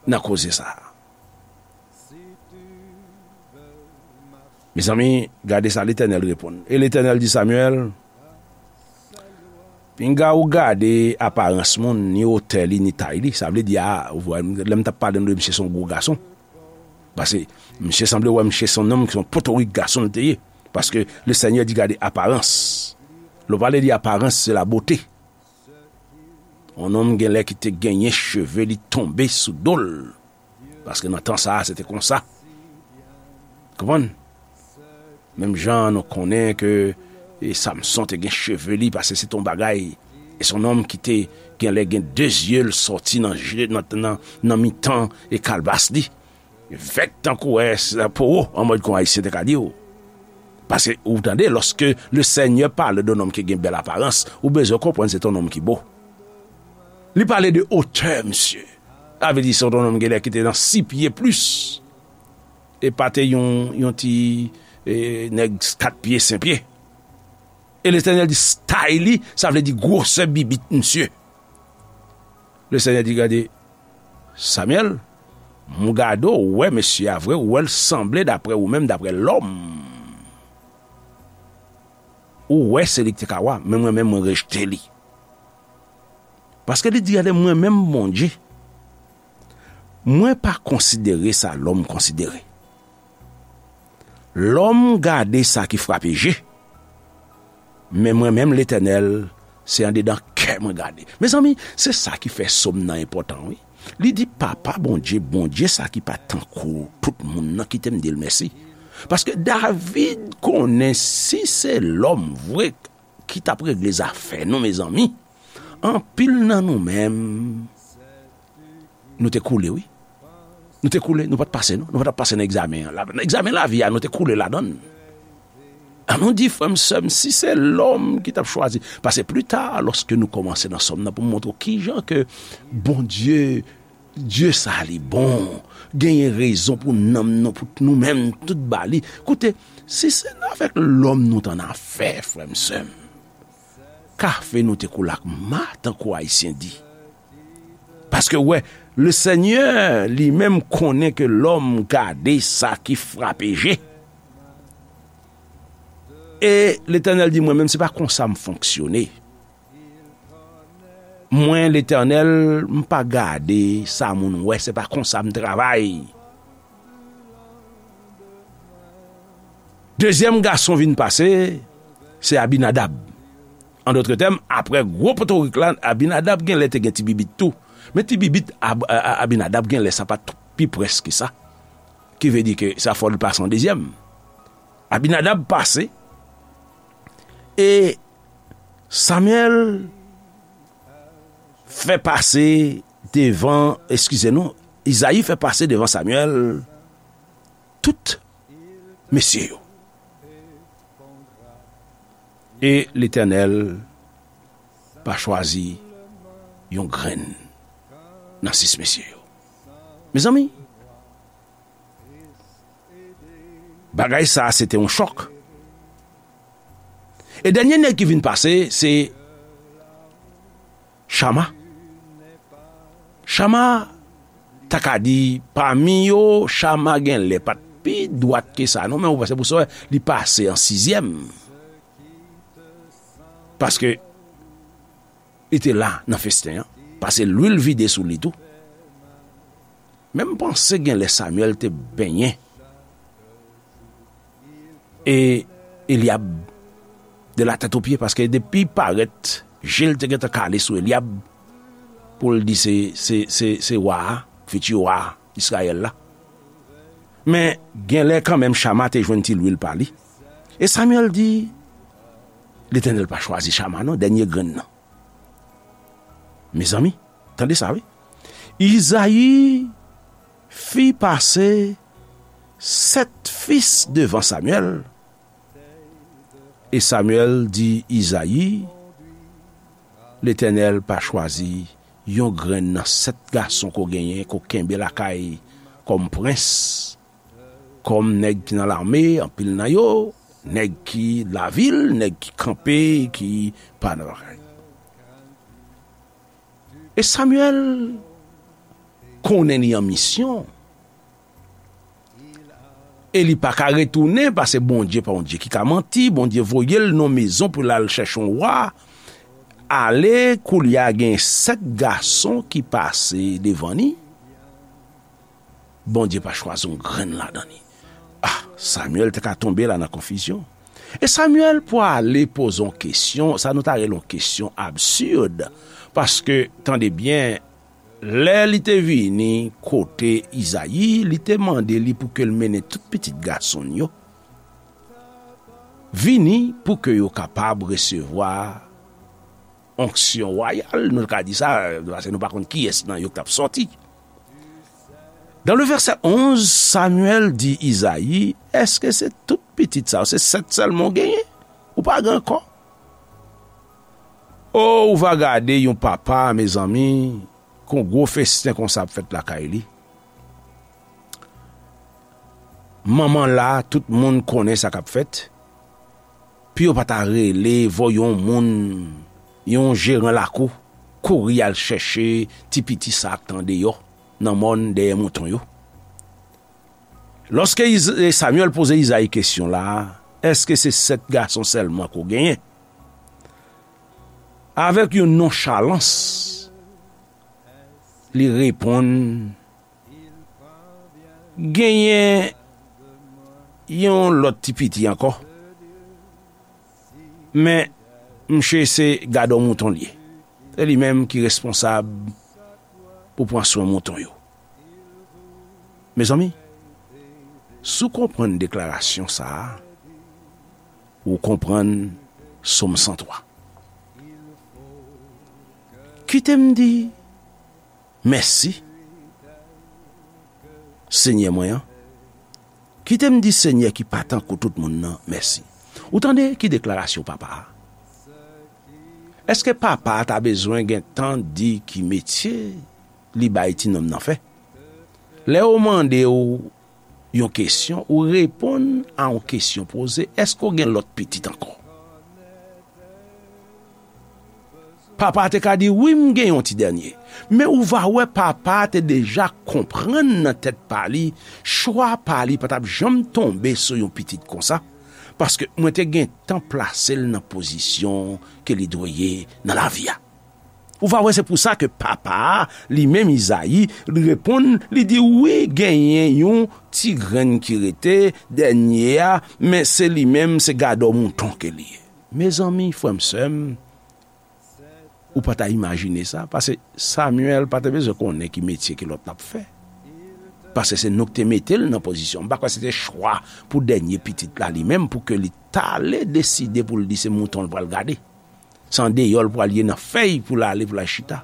nan koze sa a. Mezanmi, gade sa Letènèl reponn. E Letènèl di Samyèl, pinga ou gade aparans moun, ni wotè li, ni tay li. Sa vle di, a, ou wè, lè m t ap pale nou de misye se yon gwo gason. Paske misye sanble wè misye se yon nonm ki se yon potorik gason l te ye. Paske Lesenyè di gade aparans. Lè w pale de aparans, se la bote. Yon nonm genlè ki te genyen cheve li tonbe sou do l. Paske nan tan sa a, se te konsa. Konprann? Menm jan nou konnen ke, e, Samson te gen cheve li, paske se te yon bagay. E se yon nonm ki te genlè gen de zye l sòti nan je, nan, nan, nan mitan e kalbas li. Vèk tankou wè, se po, an mòd kon Ayisyen te ka di w. Paske, ou tande, lòske Lesenyè pale de yon nonm ki gen bèl aparans, ou bezwen konprann se te yon nonm ki bo. Li pale de otè, misye. Sa vle di se yon nonm genlè ki te nan sis pye plis. E pa te yon, yon ti, e, nèg kat pye, senk pye. E Letènèl di style li, sa vle di gwosè bibit misye. Lesenyè di, gade, Samyèl, m gade w, ou wè mesye a vre, ou wè l sanble daprè ou menm, daprè lòm. Ou wè se li ki te ka wa, men mwen menm mwen rejte li. Paske li di, gade, mwen menm Bondye, mwen pa konsidere sa lòm konsidere. Lòm gade sa ki frape je, men mwen menm, Letènèl, se andedan kè mwen gade. Mezanmi, se sa ki fè sòm nan enpòtan, wi. Li di, Papa Bondye, Bondye sa ki pa tankou tout moun nan, kite m di l mèsi. Paske David konnen si se lòm vre ki t ap regle zafè nou, mezanmi, anpil nan nou menm, nou te koule, wi. Nou te koule, nou pa t pase, non. Nou pa t ap pase nan egzamen an. La, nan egzamen lavi a, nou te koule ladan l. An nou di, frè m, sè m, si se lòm ki t ap chwazi, paske pli ta, lòske nou kòmanse nan sòm nan, pou m montre w kijan ke Bondye, Dye sa li bon, genyen rezon pou nanm nou, pou nou menm, tout ba li. Koute, si se avèk lòm nou t annafè, frè m, sè m, kafe nou te koule ak ma, tankou Ayisyen di. Paske, w wè, le Senyè li menm konnen ke lòm gade sa ki frape je. E Letènèl di, mwen menm, se pa konsa m fonksyone. Mwen, Letènèl, m pa gade sa moun wè, se pa konsa m travay. Dezyèm gason vin pase, se Abinadab. An dòt tèm, apre gwo potorik la, Abinadab genlè te gen ti bibit tou. Men ti bibit Ab-, a-, a-, Abinadab genlè sa pa t pi près ke sa. Ki vle di ke sa fò l pase an dezyèm. Abinadab pase, e Samyèl fè pase devan, eskize nou, Izayi fè pase devan Samyèl tout mesye yo. E Letènèl pa chwazi yon grenn nan sis mesye yo. Mezanmi, bagay sa a se te yon chòk. E dènye nèg ki vin pase, se Chama. Chama, ta ka di, pami yo, Chama genlè pa t pi dwat ke sa, non, men ou wè, se pou sa w wè, li pase an sizyèm. Paske li te la nan festen an, pase lwil vide sou li tou. Men m panse genlè Samyèl te benyen e Elyab de la tèt o pye, paske depi parèt, je l te gentan kale sou Elyab pou l di se, se, se, se wa a, fiti wa a Izrayèl la. Men genlè kanmenm Chama te jwenn ti lwil pa li. E Samyèl di, Letènèl pa chwazi Chama non, dènye grenn nan. Mezanmi, tande sa wi. Izayi fi pase sèt fis devan Samyèl. E Samyèl di Izayi, Letènèl pa chwazi yon grenn nan sèt gason ke w genyen, ke w kenbe lakay kòm prens, kòm nèg ki nan lame, anpil nan yo, nèg ki lavil, nèg ki kanpe, ki pa nan lakay. E Samyèl konnen li an misyon. E li pa ka retounen, paske Bondye pa yon Dye ki ka manti. Bondye voye l nan mezon pou l al chèche yon wa. Ale, koulye a gen sèt gason ki pase devan li. Bondye pa chwazi yon grenn ladan li. Ah, Samyèl te ka tonbe la nan konfizyon. E Samyèl pwale poze yon kesyon, sa nou ta rele yon kesyon absid. Paske, tande byen, lè li te vini kote Izayi, li te mande li pou ke l mennen tout pitit gason l yo vini pou ke yo kapab resevwa onksyon wayal, nou ka di sa, paske nou pa konn kiyès nan yo k t ap sòti. Dan le vèsè onz, Samyèl di Izayi, èske se tout pitit sa yo, se sèt sèlman w genyen? Ou pa gen ankò? O, ou va gade yon papa, mezanmi, kon gwo festen konsa ap fèt lakay li. Manman la, tout moun konnen sa k ap fèt. Pou yo pa ta rele, voye yon moun, yon jeran lakou, kouri al chèche ti piti sa k t andeyò, nan mòn dèyè mouton yo. Lòske Iz-, Samyèl poze Izayi kesyon la, èske se sèt gason sèlman ke w genyen? Avèk yon nonchalans, li reponn, genyen yon lòt ti piti ankò. Men, msye se gadò mouton l ye. Se li menm ki responsab pou pran swen mouton yo. Mezanmi, si w konprann deklarasyon sa a, ou konprann Sòm san twa. Kite m di mèsi, Senyè mwen an. Kite m di Senyè ki pa tankou tout moun nan, mèsi. Ou tande ki deklarasyon papa a? Èske papa a ta bezwen gen tan di ki metye li bay ti nonm nan fè? Lè yo mande w yon kesyon, ou reponn a yon kesyon poze, èske w gen lòt pitit ankò? Papa a te ka di, wi, m gen yon ti dènye. Men ou va wè, papa a te deja konprann nan tèt pa li, chwa pa li pa t ap janm tonbe sou yon pitit konsa, paske mwen te gentan plase l nan pozisyon ke li dwe ye nan lavi a. Ou va wè, se pou sa ke papa a, li menm Izayi, li reponn, li di, wi, genyen yon ti grenn ki rete, dènye a, men se li menm, se gadò mouton ke li ye. Mezanmi, frè m, sè m, ou pa ta imajine sa, paske Samyèl pa te bezwen konnen ki metye ke lòt la ap fè. Paske se nou ki te mete l nan pozisyon. M pa kwè se te chwa pou dènye pitit la li menm, pou ke li t ale deside pou l di se mouton l pral gade. Se andeyò l pral ye nan fèy pou l ale, pou l al chita.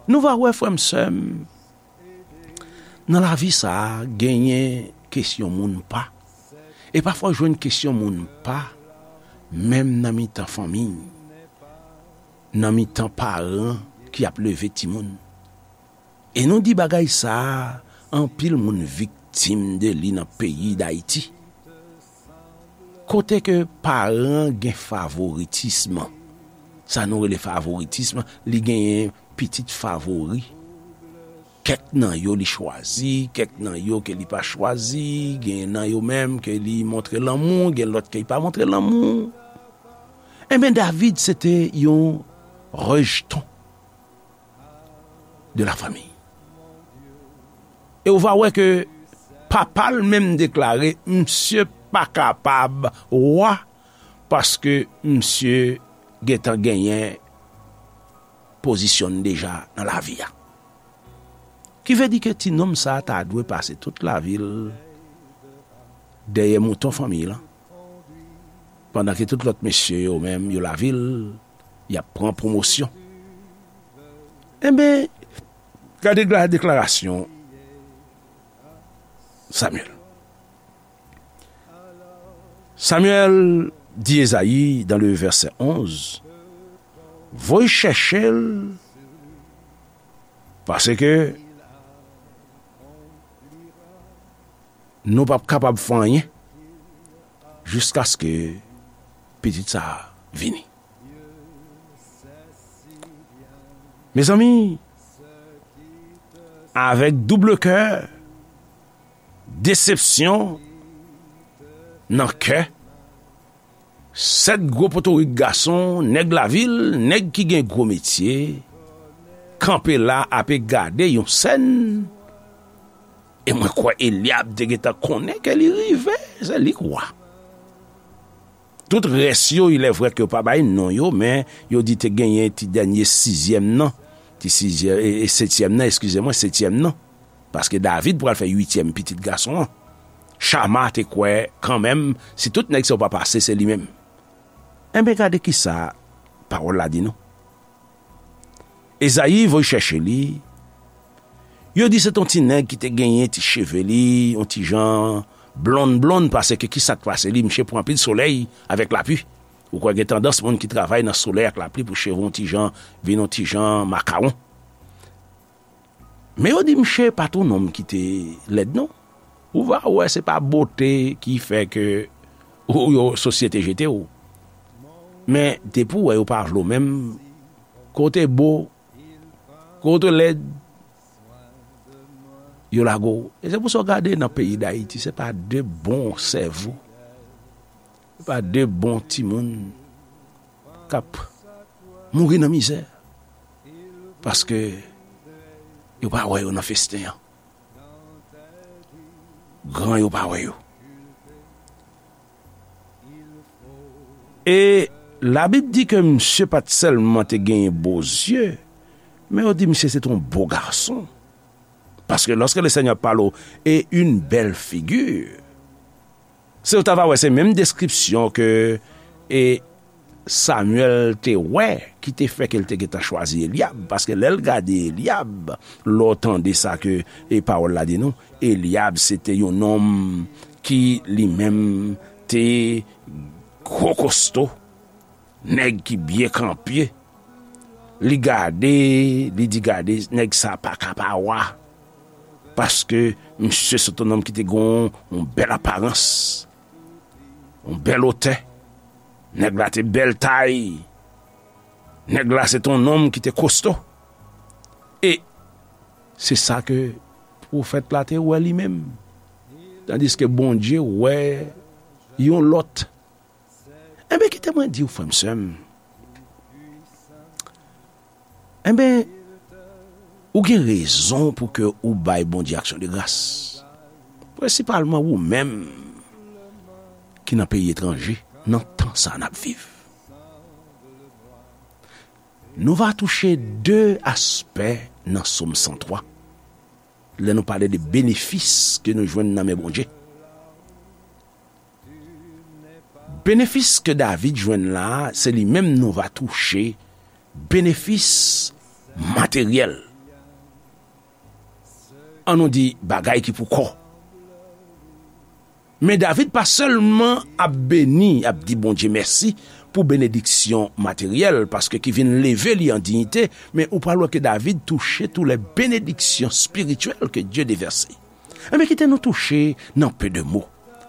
Nou va wè, frè m, sè m, nan lavi sa a, genyen kesyon moun pa. E pafwa w jwenn kesyon moun pa, menm nan mitan fanmi, nan mitan paran ki ap leve timoun. E nou di bagay sa a, anpil moun viktim de li nan peyi Dayiti. Kote ke paran gen favoritism, sa nou rele favoritism, li genyen pitit favori. Kèk nan yo li chwazi, kèk nan yo ke li pa chwazi, gen nan yo menm ke li montre lanmou, gen lòt ke li pa montre lanmou. Enben, David se te yon rejeton de la fanmi. E ou va wè ke papa l menm deklare, misye pa kapab wa, paske misye gentan genyen pozisyon l deja nan lavi a. Ki vle di ke ti nonm sa a ta dwe pase tout lavi l dèyè mouton fanmi l, pandan ke tout lòt mesye yo menm, yo lavi l, y ap pran pwomosyon. Enben, gade dekla-, deklarasyon Samyèl. Samyèl di Ezayi, dans le verset onze, voye chèche l, paske nou p ap kapab fè anyen jiskaske pitit sa a vini. Mezanmi, avèk double kè, desepsyon nan kè, sèt gwo potorik gason, nèg lavil, nèg ki gen gwo metye, kanpe la ape gade yon sèn. E mwen kwè Elyab te gentan konnen ke li rive, se li k wa. Tout rès yo, il est vrai ke yo pa bay non yo, men yo di te genyen ti dènye sizyèm nan, ti sizyèm, e, e setyèm nan, eskize mwen, setyèm nan. Paske David pral fè uityèm pitit gason an. Chama te kwè kanmenm, si tout nèg sa yo pa pase, se li menm. Enben, gade kisa pawòl la di nou. Ezayi voye chèche li. Yo di se t on ti nèg ki te genyen ti cheve li, on ti jan blonn blonn, paske kisa k pase li, misye pran anpil solèy avèk lapli. Ou kwè gen tandans moun ki travay nan solèy ak lapli pou cheve on ti jan, vin on ti jan makawon. Men yo di misye pa t on nonm ki te lèd non. Ou va wè se pa bote ki fè ke ou, yo, sosyete jete w. Men depi w wè yo pa vle w menm, kote bo, kote lèd, yo lage w. E se pou sa w gade nan peyi Dayiti, se pa de bon sèvo, se pa de bon timoun k ap mouri nan mizè. Paske yo pa wè yo nan festen an. Gran yo pa wè yo. E Labib di ke misye pa t sèlman te genyen bo zye, men yo di misye se t on bo gason. Paske lorsque le Seigneur parle et une belle figure, se ou ta va wè se menm deskripsyon ke e Samyèl te wè ki te fè ke l te gentan chwazi Elyab. Paske lè l gade Elyab, lè w tande sa ke e pawòl la di nou, Elyab se te yon nonm ki li menm te gwo kosto, nèg ki byen kanpe. Li gade, li di, "Gade, nèg sa pa ka pa wa. Paske misye se t yon nonm ki te gen yon bèl aparans, yon bèl otè. Nèg la te bèl tay. Nèg la se t yon nonm ki te kosto." E se sa ke pwofèt la te wè li menm. Tandiske Bondye wè yon lòt. Enben, kite mwen di w, frè m, sè m, enben, ou gen rezon pou ke ou bay Bondye aksyon de gras. Prensipalman ou menm ki nan peyi etranje, nan tan sa n ap viv. Nou va touche de aspè nan Sòm san twa, lè nou pale de benefis ke nou jwenn nan men Bondye. Benefis ke David jwenn la, se li menm nou va touche, benefis materyèl. An nou di bagay ki pou kò. Men David pa sèlman ap beni, ap di Bondye mèsi pou benediksyon materyèl, paske ki vin leve li an diyite, men ou pral wè ke David touche tou lè benediksyon espirityèl ke Dye devèse. Enben, kite nou touche nan pe de mo,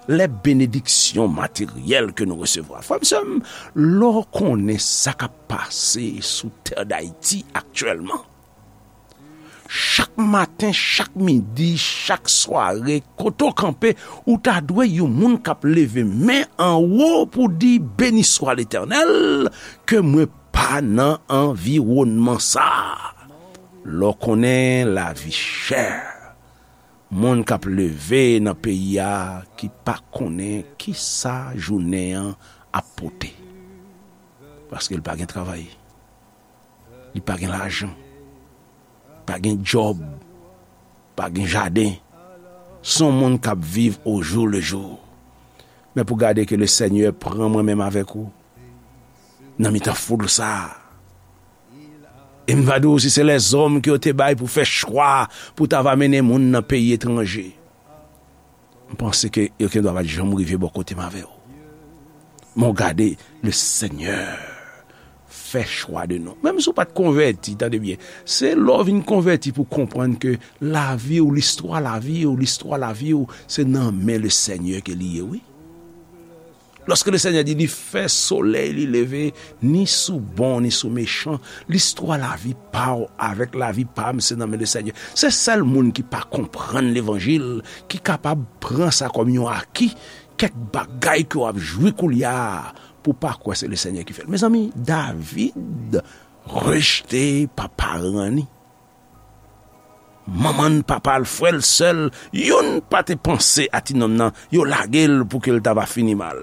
lè benediksyon materyèl ke nou resevwa. Frè m, sè m, lè w konnen sa k ap pase sou tè Dayiti aktyèlman, chak maten, chak midi, chak sware, kote w kanpe, ou ta dwe yon moun k ap leve men anwo pou di, "Beni swa Letènèl, ke mwen pa nan anviwònman sa a." Lè w konnen lavi chè, moun k ap leve nan peyi a ki pa konnen kisa jounen an ap pote, paske l pa gen travay. Li pa gen lajan, pa gen djòb, pa gen jaden. Se yon moun k ap viv au jour le jour. Men pou gade ke le Senyè pran mwen menm avèk ou nan mitan foul sa a. E m va di w, si se lèzòm ke yo te bay pou fè chwa pou ta va mennen moun nan peyi etranje, m panse ke yo gendwa pa t janm rive bò kote m avè w. Men w gade, le Senyè fè chwa de nou. Menm si w pa t konvèti, tande byen, se lè w vin konvèti pou w konprann ke lavi w, listwa lavi w, listwa lavi w, se nan men le Senyè ke li ye, wi. Lòske le Senyè di li fè solèy li leve, ni sou bon, ni sou mechan, listwa lavi pa w avèk lavi pa m, se nan men le Senyè. Se sèl moun ki pa konprann levanjil ki kapab pran sa kòm yon aki, kèk bagay ke w ap jwi koulye a, pou w pa kwè se le Senyè ki fè l. Mezanmi, David rejte pa paran ni. Manman l, papa l, frè l, sè l, youn pa te panse a ti nonm nan, yo lage l pou ke l ta va fini mal.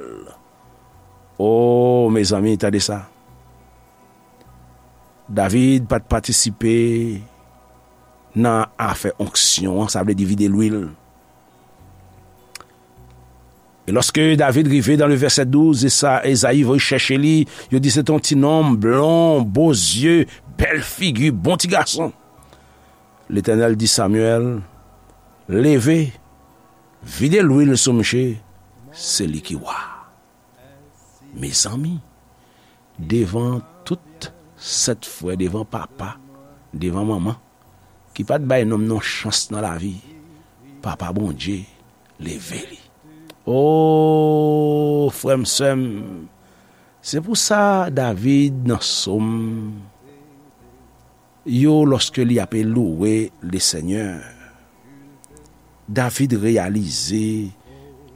O, mezanmi, tande sa. David pa t patisipe nan afè onksyon an, sa vle di vide lwil. E lòske David rive dan le vèsè douz, e sa, Ezayi voye chèche li, yo di se te yon ti nonm blon, bo zye, bèl figi, bon ti gason. Letènèl di Samyèl, "Leve, vide lwil sou mouche, se li ki wa." Mezanmi, devan tout sèt frè, devan papa, devan manman, ki pa t bay nonm nan chans nan lavi, Papa Bondye leve li. O, frè m, sè m, se pou sa David nan Sòm yo, lòske li ape louwe Lesenyè, David reyalize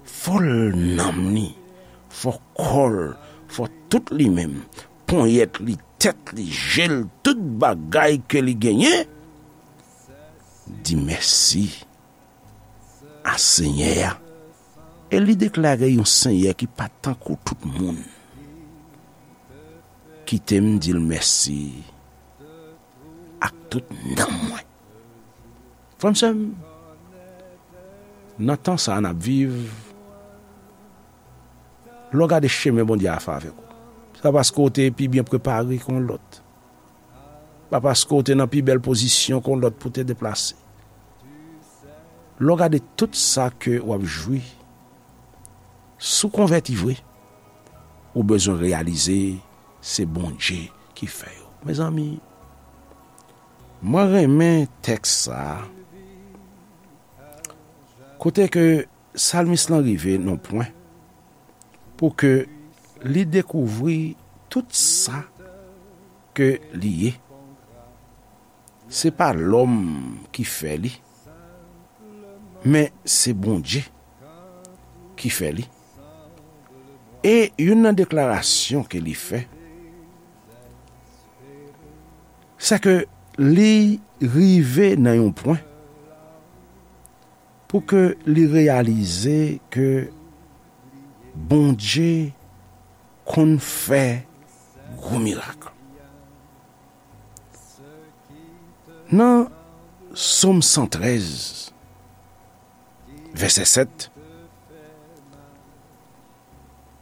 fò l nanm li, fò kò l, fò tout li menm, ponyèt li, tèt li, je l, tout bagay ke li genyen, di mèsi a Senyè a. E li deklare yon Senyè ki pa tankou tout moun. Kite m di l mèsi ak tout nanm mwen. Frè m, sè m, nan tan sa a n ap viv, lè w gade chemen Bondye a fè avèk ou, se pa paske w te pi byen prepare ke yon lòt. Pa paske w te nan pi bèl pozisyon ke yon lòt pou te deplase. Lè w gade tout sa ke w ap jwi, si w konvèti vre, ou bezwen reyalize se Bondye ki fè yo. Mezanmi, mwen renmen tèks sa a, kote ke salmis lan rive nan pwen pou ke li dekouvri tout sa ke li ye. Se pa lòm ki fè li, men se Bondye ki fè li. E youn nan deklarasyon ke li fè, se ke li rive nan yon pwen pou ke li reyalize ke Bondye konn fè gwo mirak. Nan Sòm san trèz, vèsè sèt,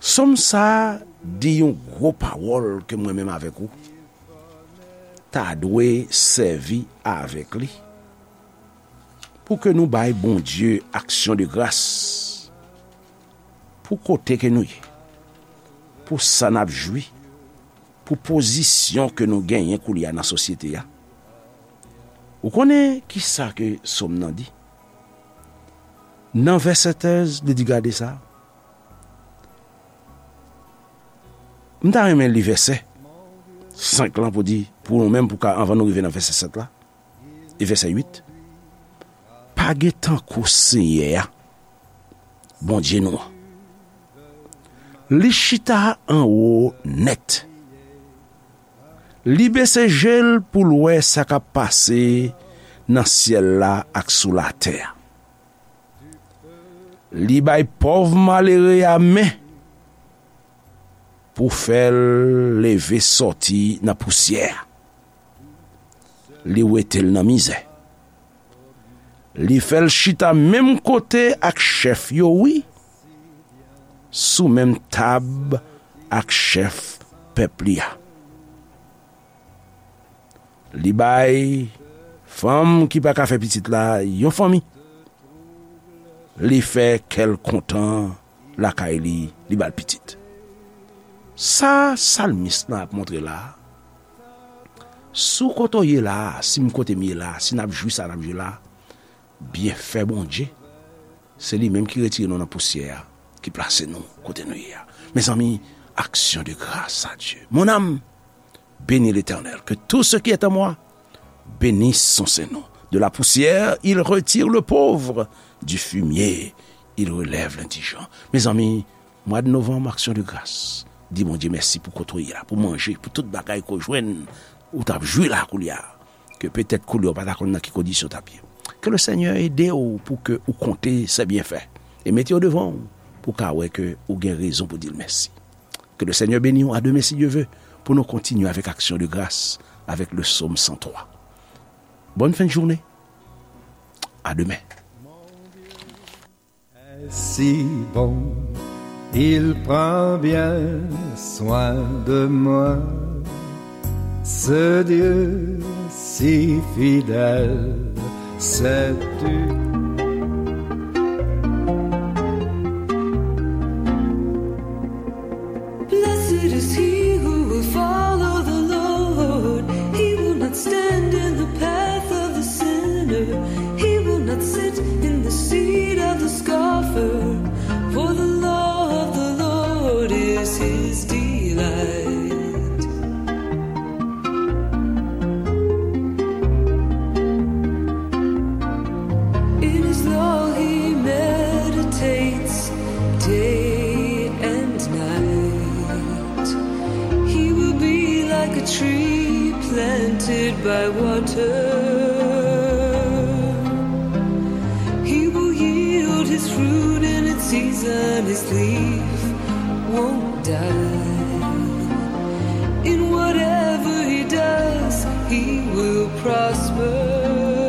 Sòm sa a di yon gwo pawòl ke mwen menm avèk ou ta dwe sèvi avèk li pou ke nou bay Bondye aksyon de gras pou kote ke nou ye, pou sa n ap jwi, pou pozisyon ke nou genyen koulye a nan sosyete a. Ou konnen ki sa ke Sòm nan di? Nan vèsè trèz, li di, gade sa. M ta renmen li vèsè senk lan pou di, pou nou menm, pou ka, anvan nou rive nan vèsè sèt la, e vèsè uit. Pa gen tankou Senyè a, Bondye nou an. Li chita anwo nèt. Li bese je l pou l wè sa k ap pase nan syèl la ak sou latè a. Li bay pòv malere a men pou fè l leve sòti nan pousyè a. Li wete l nan mizè. Li fè l chita menm kote ak chèf yo, wi, sou menm tab ak chèf pèp li a. Li bay fanm ki pa ka fè pitit la yon fanmi. Li fè kè l kontan lakay li, li ba l pitit. Sa salmis lan ap montre la a, si w kote w ye la a, si m kote m ye la a, si n ap jwi sa n ap jwi la a, byenfè Bondye, se li menm ki retire nou nan pousyè a, ki plase nou kote nou ye a. Mezanmi, action de grâce à Dieu. Mon âme, bénis l'Éternel. Que tout ce qui est en moi bénisse son saint nom. De la poussière, il retire le pauvre. Du fumier, il relève l'indigent. Mezanmi, mwa de novanm, aksyon de gras. Di Bondye mèsi pou kote w ye la, pou manje, pou tout bagay ke w jwenn, ou t ap jwi la koulye a. Ke petèt koulye a w pa ta konn nan ki kondisyon w t ap ye. Ke le Senyè ede w pou ke ou konte se byenfè. E mete yo devan w pou w ka wè ke ou gen rezon pou di l mèsi. Que le Seigneur bénisse. À demain, si Dieu veut, pour nous continuer avec action de grâce, avec le psaume cent trois. Bonne fin de journée. À demain. Si bon, il prend bien soin de moi. Ce Dieu si fidèle, sais-tu? Blessed is he who will follow the Lord. He will not stand in the path of the sinner. He will not sit in the seat of the scoffer. For the law of the Lord is his delight. In his law he meditates day and night. He will be like a tree planted by water. He will yield his fruit in its season. His leaf